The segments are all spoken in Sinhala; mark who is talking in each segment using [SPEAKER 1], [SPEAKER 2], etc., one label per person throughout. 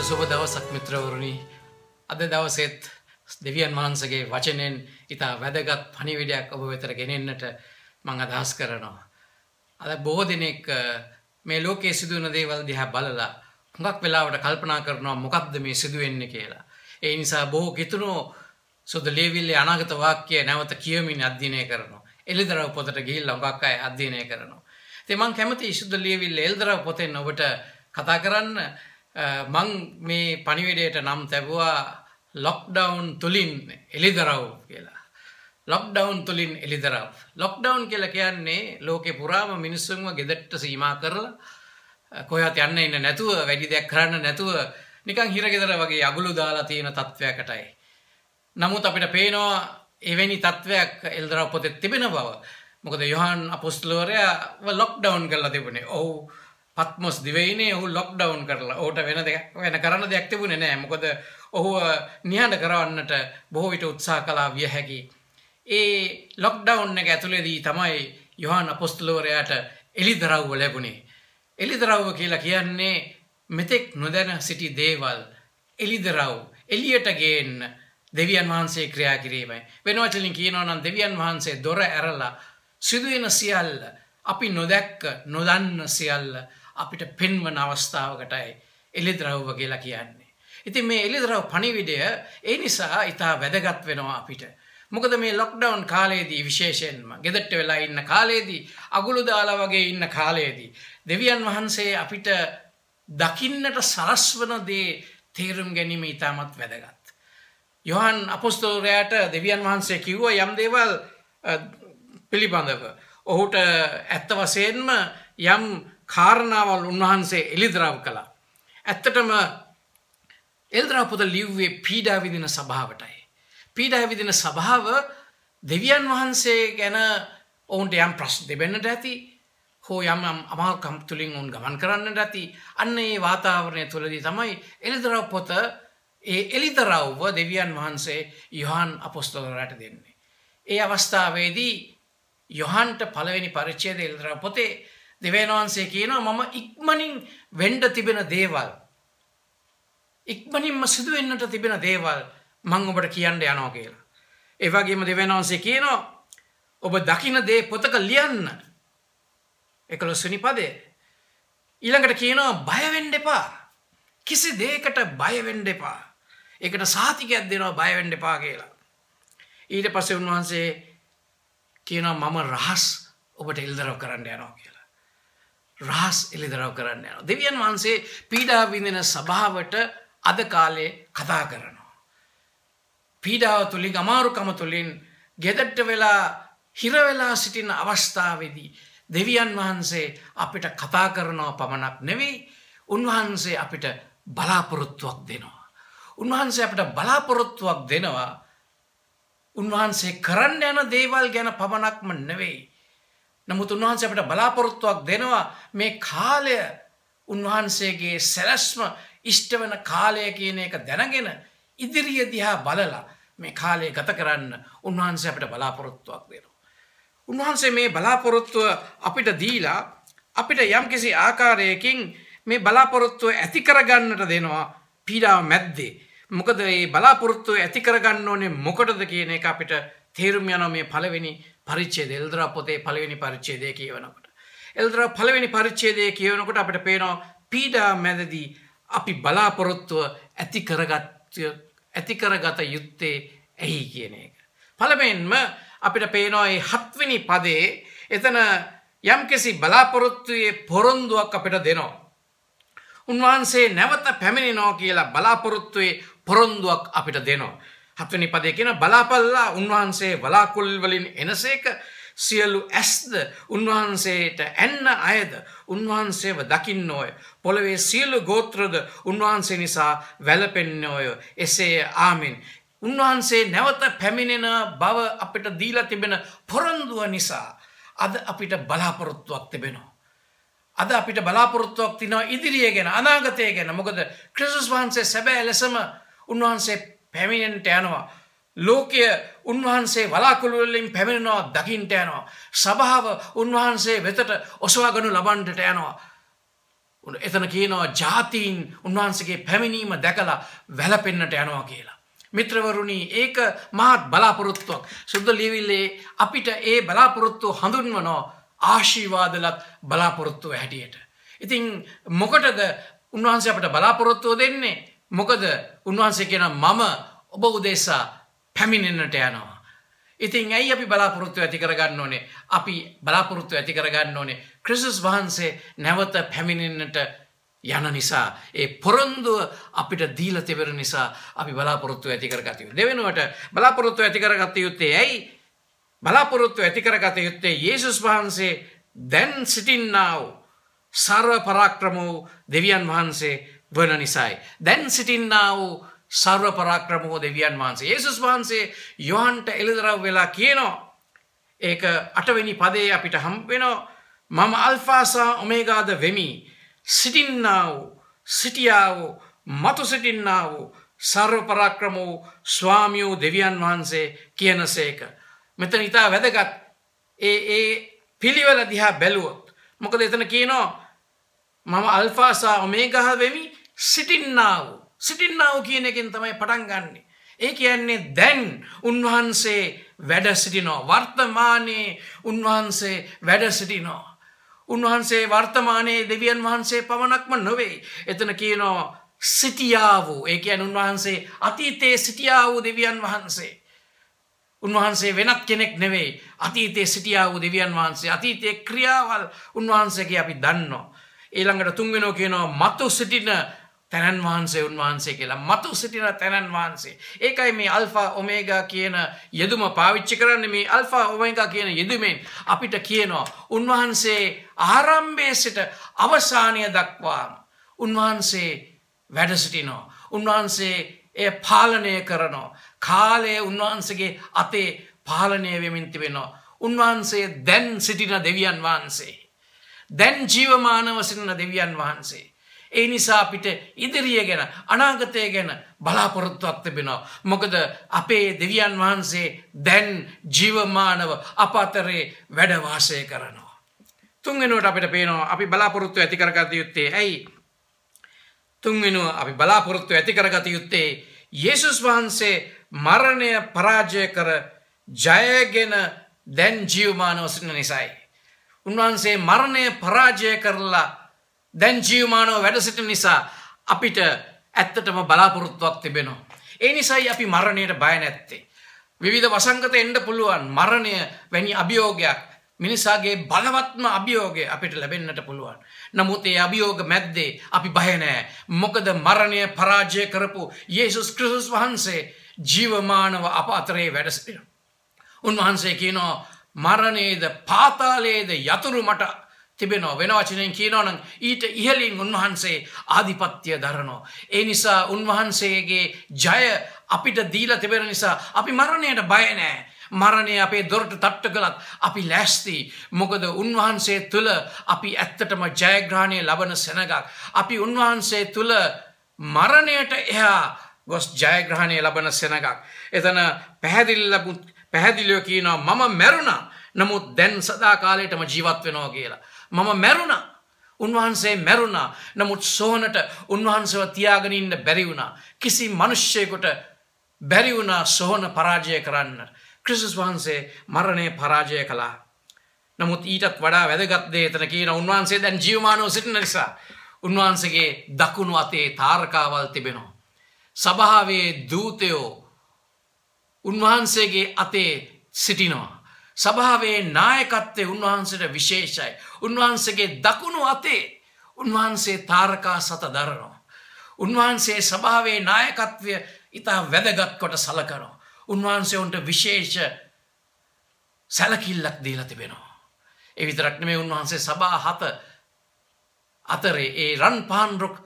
[SPEAKER 1] සුබ දවසක් මිත්‍රවරුනි. අද දවසේත් දෙවියන් වහන්සේගේ වචනෙන් ඉතා වැදගත් පණිවිඩයක් ඔබ වෙතට ගෙනෙන්නට මම අදහස් කරනවා. අද බොහෝ දෙනෙක් මේ ලෝකයේ සිදුවන දේවල් දිහා බලලා හුඟක් වෙලාවට කල්පනා කරනවා මොකක්ද මේ සිදුවෙන්නේ කියලා. ඒ නිසා බොහෝ කිතුණෝ සුදු ලියවිල්ලේ අනාගත වාක්‍ය නැවත කියමින් අධ්‍යයනය කරනවා. එළිදරව් පොතට ගිහිල්ලා හුඟක් අය අධ්‍යයනය කරනවා. ඉතින් මම කැමතියි සුදු ලියවිල්ලේ එළිදරව් පොතෙන් ඔබට කතා කරන්න. මං මේ පණිවිඩයට නම් තැබුවා ලොක්ඩවුන් තුලින් එළිදරව් කියලා. ලොක්ඩවුන් තුලින් එළිදරව්. ලොක්ඩවුන් කියලා කියන්නේ ලෝකේ පුරාම මිනිස්සුන්ව ගෙදරට සීමා කරලා කොහෙවත් යන්න ඉන්න නැතුව වැඩි දෙයක් කරන්න නැතුව නිකන් හිරගෙදර වගේ අගුළු දාලා තියෙන තත්වයකටයි. නමුත් අපිට පේනවා එවැනි තත්වයක් එළිදරව් පොතේ තිබෙන බව. මොකද යොහන් අපොස්තලවරයාව ලොක්ඩවුන් කරලා තිබුණේ. ඔහු පත්මොස් දිවයිනේ ඔහු ලොක්ඩවුන් කරලා. ඔහුට වෙන දෙයක් වෙන කරන්න දෙයක් තිබුණේ නෑ. මොකද ඔහුව නිහඬ කරවන්නට බොහෝ විට උත්සාහ කළා විය හැකි. ඒ ලොක්ඩවුන් එක ඇතුළේදී තමයි යොහන් අපොස්තලවරයාට එළිදරව්ව ලැබුණේ. එළිදරව්ව කියලා කියන්නේ මෙතෙක් නොදැන සිටි දේවල් එළිදරව් එළියට ගේන්න දෙවියන් වහන්සේ ක්‍රියා කිරීමයි. වෙන වචනින් කියනවා නම් දෙවියන් වහන්සේ දොර ඇරලා සිදුවෙන සියල්ල අපි නොදැක්ක නොදන්න සියල්ල අපිට පෙන්වන අවස්ථාවකටයි එළිදරව්ව කියලා කියන්නේ. ඉතින් මේ එළිදරව් පණිවිඩය ඒ නිසා ඉතා වැදගත් වෙනවා අපිට. මොකද මේ ලොක්ඩවුන් කාලයේදී විශේෂයෙන්ම ගෙදරට වෙලා ඉන්න කාලයේදී අගුළු දාලා වගේ ඉන්න කාලයේදී දෙවියන් වහන්සේ අපිට දකින්නට සලස්වන දේ තේරුම් ගැනීම ඉතාමත් වැදගත්. යොහන් අපොස්තලවරයාට දෙවියන් වහන්සේ කිව්වා යම් දේවල් පිළිබඳව. ඔහුට ඇත්ත වශයෙන්ම යම් කාරණාවල් උන්වහන්සේ එළිදරව් කළා. ඇත්තටම එළිදරව් පොත ලිව්වේ පීඩා විඳින සභාවටයි. පීඩා විඳින සභාව දෙවියන් වහන්සේ ගැන ඔවුන්ට යම් ප්‍රශ්න තිබෙන්නට ඇති, හෝ යම් යම් අමාරුකම් තුලින් ඔවුන් ගමන් කරන්නට ඇති. අන්න ඒ වාතාවරණය තුළදී තමයි එළිදරව් පොත ඒ එළිදරව්ව දෙවියන් වහන්සේ යොහන් අපොස්තලවරයාට දෙන්නේ. ඒ අවස්ථාවේදී යොහන්ට පළවෙනි පරිච්ඡේදය එළිදරව් පොතේ දෙවියන් වහන්සේ කියනවා මම ඉක්මනින් වෙන්න තිබෙන දේවල්, ඉක්මනින්ම සිදු වෙන්නට තිබෙන දේවල් මං ඔබට කියන්න යනවා කියලා. ඒ වගේම දෙවියන් වහන්සේ කියනවා ඔබ දකින දේ පොතක ලියන්න. 11 වෙනි පදය. ඊළඟට කියනවා බය වෙන්න එපා. කිසි දෙයකට බය වෙන්න එපා. ඒකට සාතිකයක් දෙනවා බය වෙන්න එපා කියලා. ඊට පස්සේ උන්වහන්සේ කියනවා මම රහස් ඔබට එළිදරව් කරන්න යනවා කියලා. රහස් එළිදරව් කරන්න යනවා. දෙවියන් වහන්සේ පීඩා විඳින සභාවට අද කාලේ කතා කරනවා. පීඩාව තුලින් අමාරුකම තුලින් ගෙදරට වෙලා හිර වෙලා සිටින අවස්ථාවේදී දෙවියන් වහන්සේ අපිට කතා කරනවා පමණක් නෙවෙයි, උන්වහන්සේ අපිට බලාපොරොත්තුවක් දෙනවා. උන්වහන්සේ අපිට බලාපොරොත්තුවක් දෙනවා. උන්වහන්සේ කරන්න යන දේවල් ගැන පමණක්ම නෙවෙයි. නමුත් උන්වහන්සේ අපිට බලාපොරොත්තුවක් දෙනවා මේ කාලය උන්වහන්සේගේ සැලැස්ම ඉෂ්ට වෙන කාලය කියන එක දැනගෙන ඉදිරිය දිහා බලලා මේ කාලය ගත කරන්න උන්වහන්සේ අපිට බලාපොරොත්තුවක් දෙනවා. උන්වහන්සේ මේ බලාපොරොත්තුව අපිට දීලා අපිට යම්කිසි ආකාරයකින් මේ බලාපොරොත්තුව ඇති කරගන්නට දෙනවා පීඩාව මැද්දේ. මොකද මේ බලාපොරොත්තුව ඇති කරගන්න ඕනේ මොකටද කියන එක අපිට තේරුම් යනවා මේ පළවෙනි පරිච්ඡේදය, එළිදරව් පොතේ පළවෙනි පරිච්ඡේදය කියවනකොට. එළිදරව් පළවෙනි පරිච්ඡේදය කියවනකොට අපිට පේනවා පීඩාව මැදදී අපි බලාපොරොත්තුව ඇති කරගත යුත්තේ ඇයි කියන එක. පළමුවෙන්ම අපිට පේනවා මේ 7 වෙනි පදයේ එතන යම්කිසි බලාපොරොත්තුවේ පොරොන්දුවක් අපිට දෙනවා. උන්වහන්සේ නැවත පැමිණෙනවා කියලා බලාපොරොත්තුවේ පොරොන්දුවක් අපිට දෙනවා. 7 වෙනි පදයේ කියන බලාපල්ලා උන්වහන්සේ වලාකුළු වලින් එනසේක සියලු ඇස්ද උන්වහන්සේට ඇන්න අයද උන්වහන්සේව දකින්නෝය. පොළවේ සියලු ගෝත්‍රද උන්වහන්සේ නිසා වැළපෙන්නෝය. එසේ ආමෙන්. උන්වහන්සේ නැවත පැමිණෙන බව අපිට දීලා තිබෙන පොරොන්දුව නිසා අද අපිට බලාපොරොත්තුවක් තිබෙනවා. අද අපිට බලාපොරොත්තුවක් තියෙනවා ඉදිරිය ගැන, අනාගතය ගැන. මොකද ක්‍රිස්තුස් වහන්සේ සැබෑ ලෙසම උන්වහන්සේ පැමිණෙන්නට යනවා. ලෝකය උන්වහන්සේ වලාකුළු වලින් පැමිණෙනවා දකින්නට යනවා. සභාව උන්වහන්සේ වෙතට ඔසවා ගනු ලබන්නට යනවා. එතන කියනවා ජාතීන් උන්වහන්සේගේ පැමිණීම දැකලා වැළපෙන්නට යනවා කියලා. මිත්‍රවරුනි, ඒක මහත් බලාපොරොත්තුවක්. සුද්ධ ලියවිල්ලේ අපිට ඒ බලාපොරොත්තුව හඳුන්වනවා ආශිර්වාදලත් බලාපොරොත්තුව හැටියට. ඉතින් මොකටද උන්වහන්සේ අපට බලාපොරොත්තුව දෙන්නේ? මොකද උන්වහන්සේ කියනවා මම ඔබ උදෙසා පැමිණෙන්නට යනවා. ඉතින් ඇයි අපි බලාපොරොත්තු ඇති කරගන්න ඕනේ? අපි බලාපොරොත්තු ඇති කරගන්න ඕනේ ක්‍රිස්තුස් වහන්සේ නැවත පැමිණෙන්නට යන නිසා, ඒ පොරොන්දුව අපිට දීලා තිබෙන නිසා අපි බලාපොරොත්තු ඇති කරගත යුතුයි. දෙවෙනුවට බලාපොරොත්තු ඇති කරගත යුත්තේ ඇයි? බලාපොරොත්තු ඇති කරගත යුත්තේ යේසුස් වහන්සේ දැන් සිටින්නා වූ සර්ව පරාක්‍රම වූ දෙවියන් වහන්සේ වන නිසායි. දැන් සිටින්නා වූ සර්ව පරාක්‍රම වූ දෙවියන් වහන්සේ යේසුස් වහන්සේ යොහන්ට එළිදරව් වෙලා කියනවා. ඒක 8 වෙනි පදයේ අපිට හම්බ වෙනවා. මම අල්ෆා සහ ඔමේගාද වෙමි, සිටින්නා වූ, සිටියා වූ, මතු සිටින්නා වූ සර්ව පරාක්‍රම වූ ස්වාමී වූ දෙවියන් වහන්සේ කියනසේක. මෙතන ඉතා වැදගත් ඒ ඒ පිළිවෙල දිහා බැලුවොත්. මොකද එතන කියනවා මම අල්ෆා සහ ඔමේගා වෙමි, සිටින්නා වූ. සිටින්නා වූ කියන එකෙන් තමයි පටන් ගන්නෙ. ඒ කියන්නේ දැන් උන්වහන්සේ වැඩ සිටිනවා. වර්තමානයේ උන්වහන්සේ වැඩ සිටිනවා. උන්වහන්සේ වර්තමානයේ දෙවියන් වහන්සේ පමණක්ම නොවේ. එතන කියනවා සිටියා වූ. ඒ කියන්නේ උන්වහන්සේ අතීතයේ සිටියා වූ දෙවියන් වහන්සේ. උන්වහන්සේ වෙනත් කෙනෙක් නෙවෙයි. අතීතයේ සිටියා වූ දෙවියන් වහන්සේ. අතීතයේ ක්‍රියාවල් උන්වහන්සේගේ අපි දන්නවා. ඊළඟට තුන්වෙනෝ කියනවා මතු සිටින තැනන් වහන්සේ උන්වහන්සේ කියලා. මතු සිටින තැනන් වහන්සේ. ඒකයි මේ අල්ෆා ඔමේගා කියන යෙදුම පාවිච්චි කරන්නේ. මේ අල්ෆා ඔමේගා කියන යෙදුමෙන් අපිට කියනවා උන්වහන්සේ ආරම්භයේ සිට අවසානය දක්වාම උන්වහන්සේ වැඩ සිටිනවා. උන්වහන්සේ එය පාලනය කරනවා. කාලය උන්වහන්සේගේ අතේ පාලනය වෙමින් තිබෙනවා. උන්වහන්සේ දැන් සිටින දෙවියන් වහන්සේ. දැන් ජීවමානව සිටින දෙවියන් වහන්සේ. ඒ නිසා අපිට ඉදිරිය ගැන, අනාගතය ගැන බලාපොරොත්තුවක් තිබෙනවා. මොකද අපේ දෙවියන් වහන්සේ දැන් ජීවමානව අප අතරේ වැඩ වාසය කරනවා. තුන්වෙනුවට අපිට පේනවා අපි බලාපොරොත්තු ඇති කරගත යුත්තේ ඇයි? තුන්වෙනුව අපි බලාපොරොත්තු ඇති කරගත යුත්තේ යේසුස් වහන්සේ මරණය පරාජය කර ජයගෙන දැන් ජීවමානව සිටින නිසායි. උන්වහන්සේ මරණය පරාජය කරලා දැන් ජීවමානව වැඩ සිටින නිසා අපිට ඇත්තටම බලාපොරොත්තුවක් තිබෙනවා. ඒ නිසායි අපි මරණයට බය නැත්තේ. විවිධ වසංගත එන්න පුළුවන්. මරණය වැනි අභියෝගයක්, මිනිසාගේ බලවත්ම අභියෝගය අපිට ලැබෙන්නට පුළුවන්. නමුත් ඒ අභියෝග මැද්දේ අපි බය නෑ. මොකද මරණය පරාජය කරපු යේසුස් ක්‍රිස්තුස් වහන්සේ ජීවමානව අප අතරේ වැඩ සිටිනවා. උන්වහන්සේ කියනවා මරණයේද පාතාලයේද යතුරු මට තිබෙනවා. වෙන වචනයෙන් කියනවා නම් ඊට ඉහළින් උන්වහන්සේ ආධිපත්‍ය දරනවා. ඒ නිසා උන්වහන්සේගේ ජය අපිට දීලා තිබෙන නිසා අපි මරණයට බය නෑ. මරණය අපේ දොරට තට්ටු කළත් අපි ලෑස්ති. මොකද උන්වහන්සේ තුළ අපි ඇත්තටම ජයග්‍රහණය ලබන සෙනගක්. අපි උන්වහන්සේ තුළ මරණයට එහා ගොස් ජයග්‍රහණය ලබන සෙනගක්. එතන පැහැදිලිව කියනවා මම මැරුණා, නමුත් දැන් සදා කාලයටම ජීවත් වෙනවා කියලා. මම මැරුණා. උන්වහන්සේ මැරුණා. නමුත් සෝනට උන්වහන්සේව තියාගෙන ඉන්න බැරි වුණා. කිසි මිනිස්සෙකුට බැරි වුණා සෝන පරාජය කරන්න. ක්‍රිස්තුස් වහන්සේ මරණය පරාජය කළා. නමුත් ඊටත් වඩා වැදගත් දේ එතන කියන උන්වහන්සේ දැන් ජීවමානව සිටින නිසා උන්වහන්සේගේ දකුණු අතේ තාරකාවල් තිබෙනවා. සභාවේ දූතයෝ උන්වහන්සේගේ අතේ සිටිනවා. සභාවේ නායකත්වය උන්වහන්සේට විශේෂයි. උන්වහන්සේගේ දකුණු අතේ උන්වහන්සේ තාරකා සත දරනවා. උන්වහන්සේ සභාවේ නායකත්වය ඉතා වැදගත් කොට සලකනවා. උන්වහන්සේ උන්ට විශේෂ සැලකිල්ලක් දීලා තිබෙනවා. ඒ විතරක් නෙමෙයි, උන්වහන්සේ සභා හත අතරේ, ඒ රන් පාන් රුක්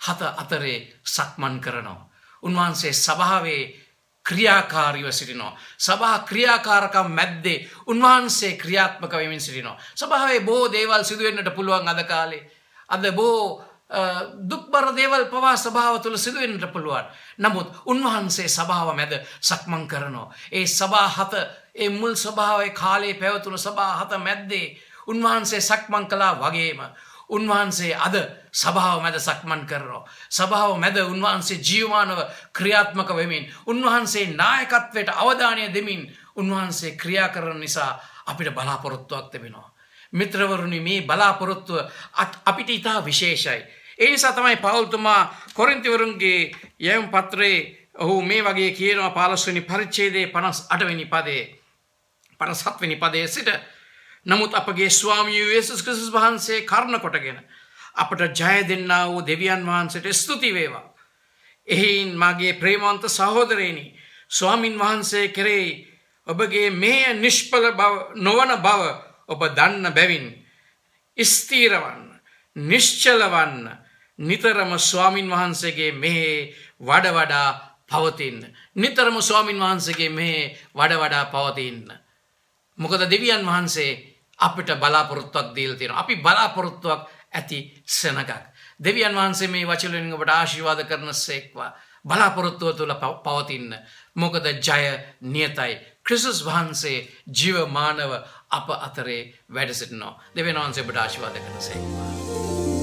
[SPEAKER 1] හත අතරේ සක්මන් කරනවා. උන්වහන්සේ සභාවේ ක්‍රියාකාරීව සිටිනවා. සභා ක්‍රියාකාරකම් මැද්දේ උන්වහන්සේ ක්‍රියාත්මක වෙමින් සිටිනවා. සභාවේ බොහෝ දේවල් සිදු වෙන්නට පුළුවන් අද කාලේ. අද බොහෝ දුක්බර දේවල් පවා සභාව තුළ සිදු වෙන්නට පුළුවන්. නමුත් උන්වහන්සේ සභාව මැද සක්මන් කරනවා. ඒ සභා හත, ඒ මුල් සභාවේ කාලේ පැවතුණු සභා හත මැද්දේ උන්වහන්සේ සක්මන් කළා වගේම උන්වහන්සේ අද සභාව මැද සක්මන් කරනවා. සභාව මැද උන්වහන්සේ ජීවමානව ක්‍රියාත්මක වෙමින්, උන්වහන්සේ නායකත්වයට අවධානය දෙමින් උන්වහන්සේ ක්‍රියා කරන නිසා අපිට බලාපොරොත්තුවක් තිබෙනවා. මිත්‍රවරුනි, මේ බලාපොරොත්තුව අපිට ඉතා විශේෂයි. ඒ නිසා තමයි පෞල්තුමා කොරින්තිවරුන්ගේ යැවුම් පත්‍රයේ ඔහු මේ වගේ කියනවා 15 වෙනි පරිච්ඡේදයේ 58 වෙනි පදයේ 57 වෙනි පදයේ සිට, නමුත් අපගේ ස්වාමී යේසුස් ක්‍රිස්තුස් වහන්සේ කරුණ කොටගෙන අපට ජය දෙන්නා වූ දෙවියන් වහන්සේට ස්තුති වේවා. එහෙයින් මාගේ ප්‍රේමවන්ත සහෝදරයනි, ස්වාමින් වහන්සේ කෙරෙහි ඔබගේ මෙය නිෂ්ඵල බව නොවන බව ඔබ දන්න බැවින් ස්ථිරවන්න, නිශ්චලවන්න, නිතරම ස්වාමින් වහන්සේගේ මෙහි වඩ වඩා පවතින්න. නිතරම ස්වාමින් වහන්සේගේ මෙහි වඩ වඩා පවතින්න. මොකද දෙවියන් වහන්සේ අපිට බලාපොරොත්තුවක් දීලා තියෙනවා. අපි බලාපොරොත්තුවක් ඇති සෙනගක්. දෙවියන් වහන්සේ මේ වචන වලින් ඔබට ආශිර්වාද කරන සේක්වා. බලාපොරොත්තුව තුළ පවතින්න. මොකද ජය නියතයි. ක්‍රිස්තුස් වහන්සේ ජීවමානව අප අතරේ වැඩ සිටිනවා. දෙවියන් වහන්සේ ඔබට ආශිර්වාද කරන සේක්වා.